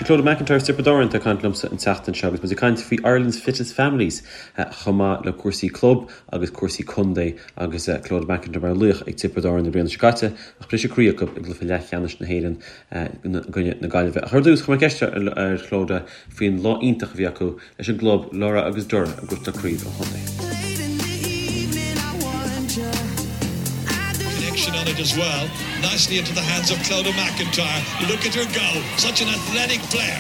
Clodagh McIntyre as Tiobraid Árann atá ag caint liomsa an tseachtain seo agus muid ag caint faoi Ireland's Fittest Families chomh maith le cúrsaí club agus cúrsaí contae agus Clodagh McIntyre mar laoch ag Tiobraid Árann na bliana seo caite ach briseadh croí acu i gcluiche leathcheannais na hÉireann i gcoinne na Gaillimhe. Ach ar dtús, chuir mé ceist ar Chlodagh faoin lá iontach a bhí acu leis an gclub Lorrha agus Doire ag gnóthachtáil craobh an chontae. Connection on it as well. Nicely into the hands of Clodagh McIntyre. Look at her go. Such an athletic player.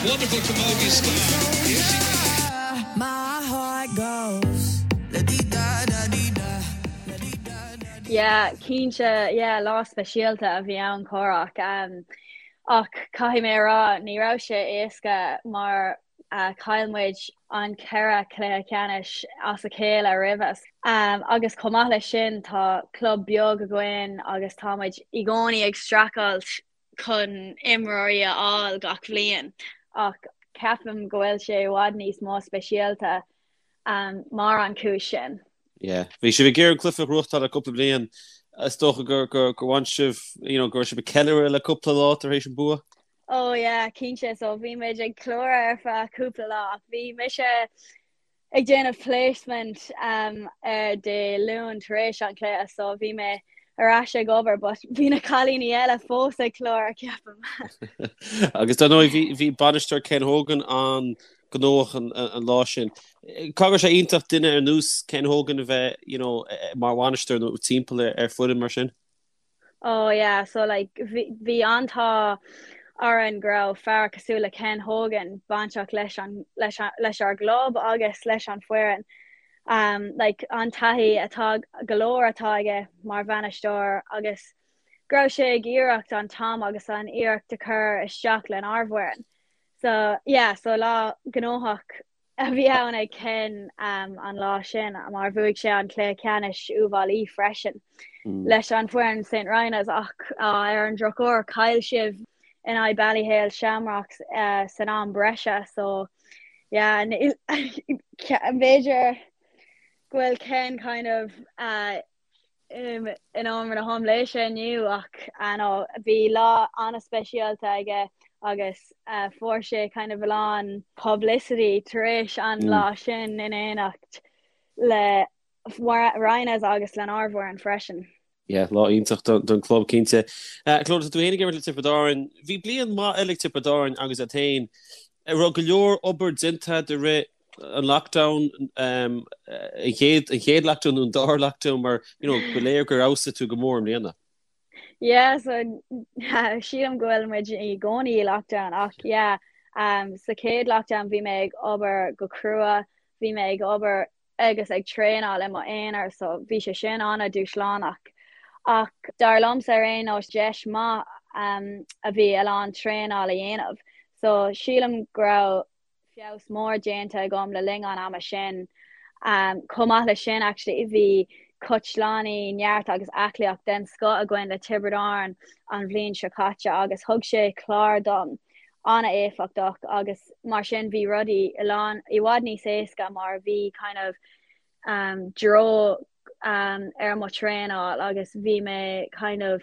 Wonderful camogie star. Here she goes. Yeah, cinnte, yeah, lá speisialta a bhí ann Cárthach. Um, ach caithfidh mé a rá, ní raibh sé éasca mar Chaill muid an 4 cluiche ceannais as a chéile roimhe. Agus chomh maith leis sin tá club beag againn agus tá muid i gcónaí ag streachailt chun imreoirí a fháil gach bhliain. Ach ceapaim go bhfuil sé i bhfad níos mó speisialta mar an chúis sin. Yeah. Bhí sibh ag iarraidh an cluiche a ghnóthachtáil le cúpla bliain. Is dócha gur gur bhain sibh, you know, go raibh sibh ag ceiliúradh le cúpla lá tar éis an bua? Oh yeah, cinnte, so bhí muid ag ceiliúradh ar feadh cúpla lá ach bhí mise ag déanamh placement um, ar Dé Luain tar éis an chluiche so bhí mé ar ais ag obair but bhí na cailíní eile fós ag ceiliúradh ceapaim. Agus dar ndóigh bhí bhí bainisteoir Ken Hogan an-ghnóthach an, an lá sin. Caithfidh go raibh sé iontach duine ar nós Ken Hogan a bheith you know, mar bhainisteoir nó timpeall ar, ar foireann mar sin? Oh yeah, so like bhí an t-ádh orainn go raibh fear cosúil le Ken Hogan bainteach leis an leis leis ár gclub agus leis an foireann. Um, like an taithí atá go leor atá aige mar bhainisteoir agus go raibh sé ag iarracht an t-am agus an iarracht a chur isteach lenár bhfoireann. So yeah, so lá gnóthach a bhí ann ag Ken an lá sin mar bhuaigh sé an cluiche ceannais Uíbh Fhailí freisin leis an foireann St Rynagh's ach ar an drochuair chaill sibh in aghaidh Ballyhale Shamrocks san am breise so yeah b'fhéidir go bhfuil Ken kind of in iomaire na haimléise inniu ach no bhí lá an-speisialta aige agus fuair sé kind of a lán publicity tar éis an lá sin in éineacht le Rynagh's agus lenár bhfoireann freisin. Yeah, lá iontach don club cinnte. Clodagh, tá tú féin ag imirt le Tiobraid Árann. Bhí bliain maith eile ag Tiobraid Árann agus iad féin. Raibh go leor obair déanta i rith an lockdown, an chéad, an chéad lockdown nó an dara lockdown mar, you know, ba léir gur fheabhsaigh tú go mór i mbliana. Yeah, so sílim go bhfuil muid i gcónaí i lockdown ach yeah, um, sa chéad lockdown bhí mé ag obair go crua, bhí mé ag obair agus ag traenáil i mo aonar so bhí sé sin an-dúshlánach. Ach dar liomsa ar aon nós deis maith um, a bhí a lán traenáil a dhéanamh. So sílim go raibh feabhas mór déanta agam le linn an ama sin. Chomh maith leis sin actually bhí cóitseálaí neart agus aclaíocht den scoth againn le Tiobraid Árann an bhliain seo caite agus thug sé clár dom an-éifeachtach agus mar sin bhí rudaí i lán i bhfad níos éasca mar bhí kind of dtreo ar mo traenáil agus bhí mé kind of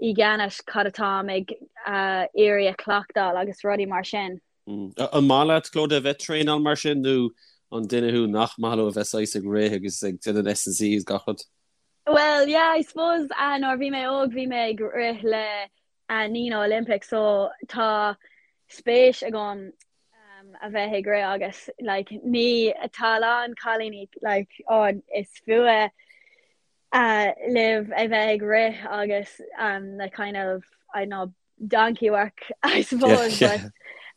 i gceannas cad atáim ag iarraidh a chleachtáil agus rudaí mar sin. An maith leat, Clodagh, a bheith ag traenáil mar sin nó an duine thú nach maith leo a bheith saghas ag rith agus ag déanamh S&C agus gach rud? Well, yeah, I suppose uh, nuair bhí mé óg bhí mé ag rith le uh, Nenagh Olympic so tá spéis agam um, a bheith ag rith agus like, ní tá a lán cailíní like, oh, is fuath uh, libh a bheith ag rith agus um, the kind of I don't know donkey work I suppose yeah, yeah.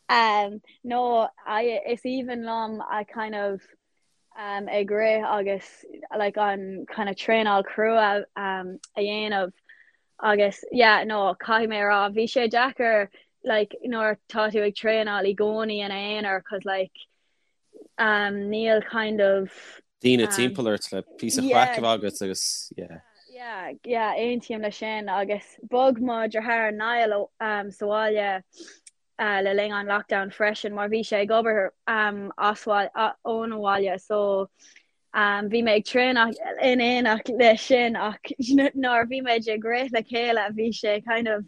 but um, no I, is aoibhinn liom a kind of um, ag rith agus like an kind of traenáil crua um, a dhéanamh agus yeah no caithfidh mé a rá bhí sé deacair like nuair tá tú ag traenáil i gcónaí ina aonar cause like um, níl kind of daoine timpeall ort le píosa craic a bheith agat agus yeah. Yeah, yeah, aontaím leis sin agus bhog mo dheartháir Niall um, sa bhaile uh, le linn an lockdown freisin mar bhí sé ag obair um, as ón bhaile so um, bhí mé ag traenáil in éineacht leis sin ach nuair bhí muid ag rith le chéile bhí sé kind of.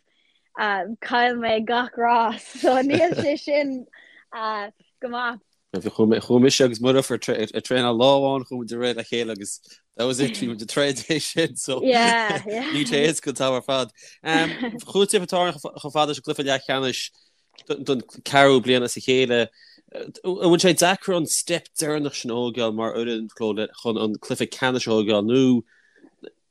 Chaill mé gach rás so níl sé sin go maith. Chuaigh mise agus mo dheirfiúr ag traenáil lá amháin chuaigh muid ag rith le chéile agus that was it bhí muid ag troid é sin so níl sé éasca an t-am ar fad. Chuaigh Tiobraid Árann chomh fada leis an gcluiche leathcheannais don ceathrú bliain as a chéile. An bhfuil sé deacair an step deireanach sin a thógáil mar fhoireann Clodagh chun an cluiche ceannais a thógáil nó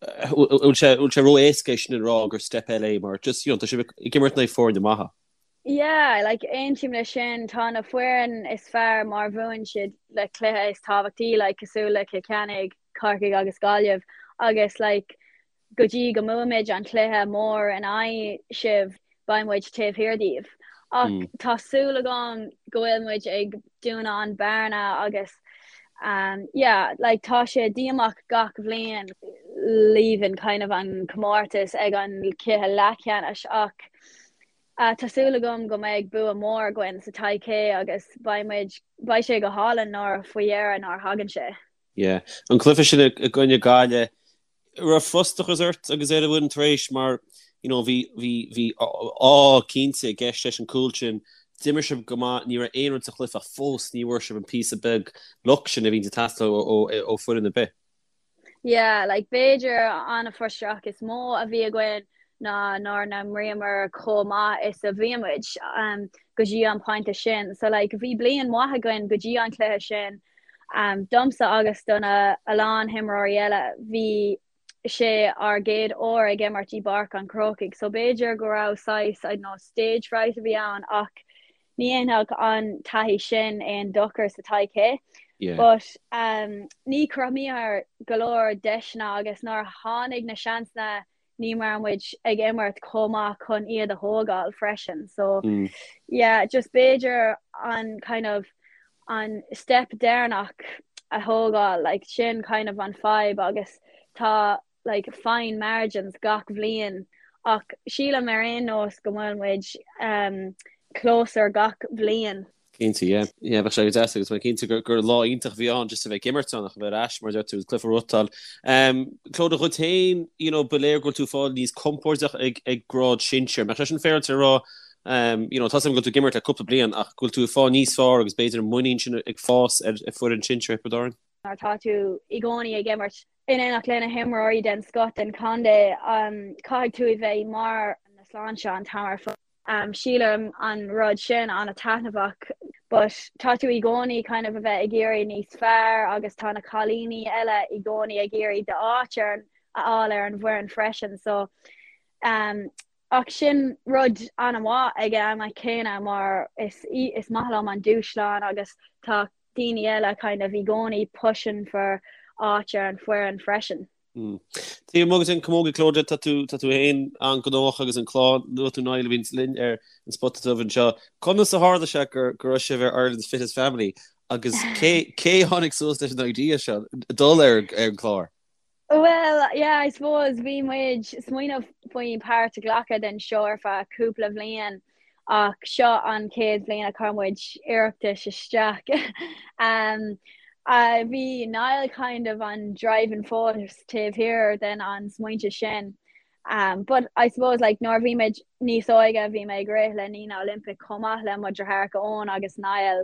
an bhfuil sé ró-éasca é sin a rá gur step eile é mar just you know tá sibh ag imirt in aghaidh foirne maithe. Yeah, like aontaím le sin, tá na foireann is fearr mar bhuann siad na cluiche is tábhachtaí like cosúil le Cill Chainnigh, Corcaigh agus Gaillimh agus like go dtí go mbuaimid an cluiche mór in aghaidh sibh beidh muid taobh thiar díobh. Ach mm. tá súil agam go bhfuil muid ag dúnadh an bearna agus um, yeah, like tá sé díomách gach bhliain leaving kind of an comórtas ag an cluiche leathcheannais ach Tá súil agam go mbeidh bua mór againn sa todhchaí agus beidh muid, beidh sé go hálainn nuair faoi dheireadh nuair a thagann sé. Yeah. An cluiche sin i gcoinne Gaillimh, raibh frustrachas ort agus ar an bhfoireann tar éis mar you know bhí bhí bhí ádh cinnte i gceist leis an cúl sin, d'imir sibh go maith, ní raibh aon rud sa chluiche ach fós ní bhfuair sibh an píosa beag luck sin a bhíonn ag teastáil ó ó foireann ar bith. Yeah, like b'fhéidir an frustrachas is mó a bhí againn ná nár n-imríomar chomh maith is a bhí muid um, go dtí an pointe sin. So like bhí bliain mhaith againn go dtí an cluiche sin. Um, domsa agus do na a lán himreoirí eile bhí sé ár gcéad uair ag imirt i bPáirc an Chrócaigh, so b'fhéidir go raibh saghas, I don't know, stage fright a bhí ann ach Ní dhéanfadh an taithí sin aon dochar sa todhchaí. But um, ní chruthaíomar go leor deiseanna agus nuair a tháinig na seansanna ní raibh muid ag imirt chomh maith chun iad a thógáil freisin. So mm. yeah, just b'fhéidir an kind of an step deireanach a thógáil, like sin kind of an fadhb agus tá like fine margins gach bhliain ach sílim ar aon nós go bhfuil muid um, closer gach bhliain. Cinnte, yeah. Yeah, bheadh sé go deas agus mé cinnte gur, gur lá iontach a bhí ann just a bheith ag imirt ann ach a bheith ar ais mar deir tú cluiche a bhuachtáil. Um, Clodagh dhuit féin, you know, ba léir go bhfuil tú ag fáil níos compordach ag, ag grád sinsir. Mbeadh sé sin féaráilte a rá, um, you know, tá a fhios agam go bhfuil tú ag imirt le cúpla bliain ach go bhfuil tú ag fáil níos fearr agus b'fhéidir an muinín sin ag fás ar, ar foireann sinsir Thiobraid Árann? Nuair atá tú i gcónaí ag imirt in éineacht le na himreoirí den scoth den chontae, caithfidh tú a bheith i mbarr na sláinte an t-am ar fad. Sílim an rud sin an-taitneamhach but tá tú i gcónaí kind of a bheith ag iarraidh níos fearr agus tá na cailíní eile i gcónaí ag iarraidh d'áit ar a fháil ar an bhfoireann freisin so um, ach sin rud an-mhaith ag an am céanna mar is, is maith liom an dúshlán agus tá daoine eile kind of i gcónaí pushing for áit ar an bhfoireann freisin. Taobh amuigh den Camogie Clodagh, tá tú tá tú féin an-ghnóthach agus an chlann, luaigh tú Niall a bhíonns linn ar an Spota Dubh anseo. Conas a tharla sé gur go raibh sibh ar Ireland's Fittest Family agus cé cé a tháinig suas leis an idea seo dul ar ar an chlár? Well, yeah, I suppose bhí muid smaoineamh faoi páirt a ghlacadh den seó ar feadh cúpla bhliain ach seo an chéad bhliain a chuir muid iarratas isteach. um, uh, bhí Niall kind of an driving force taobh thiar den an smaointe sin. Um, but I suppose like nuair bhí muid níos óige bhí mé ag rith le Nenagh Olympic chomh maith le mo dheartháireacha Eoin agus Niall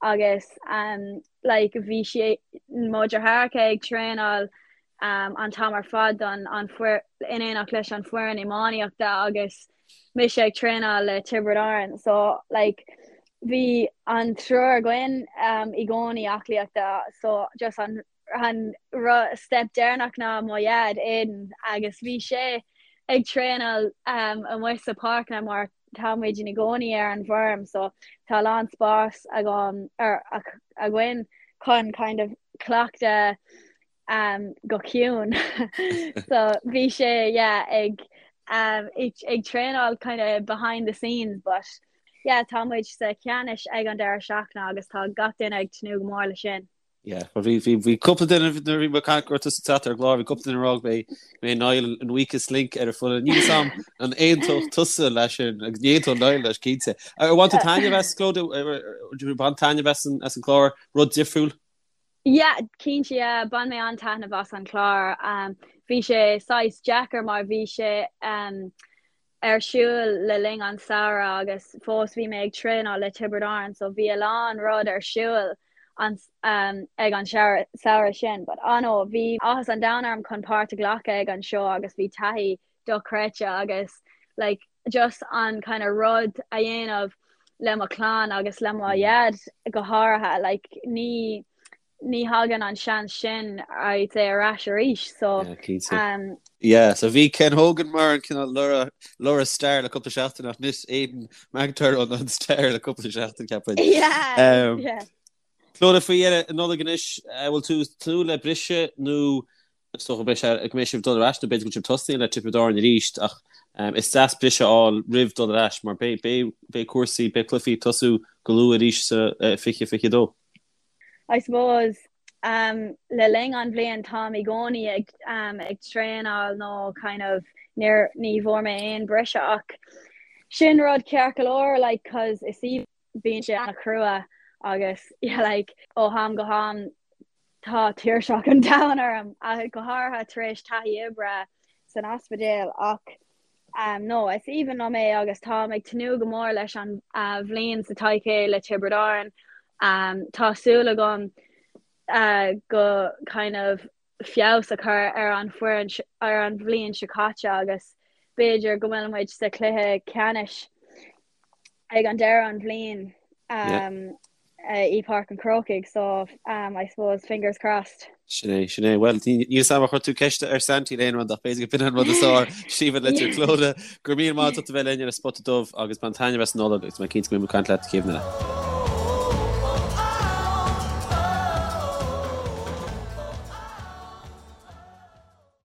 agus um, like bhí sé mo dheartháireacha ag traenáil um, an t-am ar fad don an fuir, in éineacht leis an foireann iománaíochta agus mise ag traenáil le Tiobraid Árann so like bhí an triúr againn um, i gcónaí aclaíochta so just an an step deireanach ná mo dhaid Aidan agus bhí sé ag traenáil um, amuigh sa páirceanna mar tá muid i gcónaí ar an bhfeirm so tá a lán spás agam ar againn chun kind of cleachtadh um, go ciúin so bhí sé yeah, ag um, ag traenáil kind of behind the scenes but yeah, tá muid sa cheannais ag an deireadh seachtaine agus tá gach duine ag tnúth go mór le sin. Yeah, well bhí bhí bhí cúpla duine nuair a bhí mé ag caint go raibh tusa ag teacht ar an gclár, bhí cúpla duine ag rá go mbeidh go mbeidh Niall an weakest link ar an foireann. Níl a fhios agam an aontódh tusa leis sin agus ní aontódh Niall leis cinnte. Ar bhain tú taitneamh as Clodagh? Ar did you bain taitneamh as an as an chlár? Rud difriúil? Yeah, cinnte yeah, bhain mé an-taitneamh as an chlár. Um, bhí sé saghas deacair mar bhí sé um, ar siúl le linn an samhradh agus fós bhí mé ag traenáil le Tiobraid Árann so bhí a lán rud ar siúl an ag an samhradh sin. But ah no, bhí áthas an domhain orm chun páirt a ghlacadh ag an seó agus bhí taithí dochreidte agus like just an kind of rud a dhéanamh le mo chlann agus le mo dhaid go háirithe like ní ní thagann an seans sin I'd say ar ais arís so Yeah, cinnte. um, Yeah, so bhí Ken Hogan mar an cineál Laura Laura Star le cúpla seachtain ach anois Aidan McIntyre an an star le cúpla seachtain ceapaim. yeah, Um, yeah. Clodagh faoi dheireadh an Nollaig anois, eh, bhfuil tú ag tnúth le briseadh nó Is dócha go mbeidh sibh ag dul ar ais nó b'fhéidir go bhfuil sibh tosaithe le Tiobraid Árann arís ach is deas briseadh a fháil roimh dul ar ais mar beidh cúrsaí, beidh cluichí ag tosú go luath arís sa 2022. I suppose le linn an bhliain táim i gcónaí ag ag traenáil nó kind of níor ní bhfuair mé aon briseadh ach sin rud ceart go leor like cause is í bíonn sé an-chrua agus yeah like ó ham go ham tá tuirseach an domhain orm, go háirithe tar éis taithí oibre san ospidéal ach um, no, is aoibhinn liom é agus táim ag tnúth go mór leis an uh, bhliain sa todhchaí le Tiobraid Árann. Um, tá súil agam uh, go kind of feabhas a chur ar an foireann ar an bhliain seo caite agus b'fhéidir go bhfuil muid sa chluiche ceannais ag an deireadh an bhliain um, i Páirc an Chrócaigh so um, I suppose fingers crossed. Sin é, sin é. Well, níl a fhios agam ar chuir tú ceist ar Santy le aon rud ach b'fhéidir go b'in an rud is fearr. Síomha Leitir Clodagh, go raibh míle maith agat a bheith linn ar an Spota Dubh agus bain taitneamh as an Nollaig agus mé cinnte go mbeidh muid ag caint leat céad eile.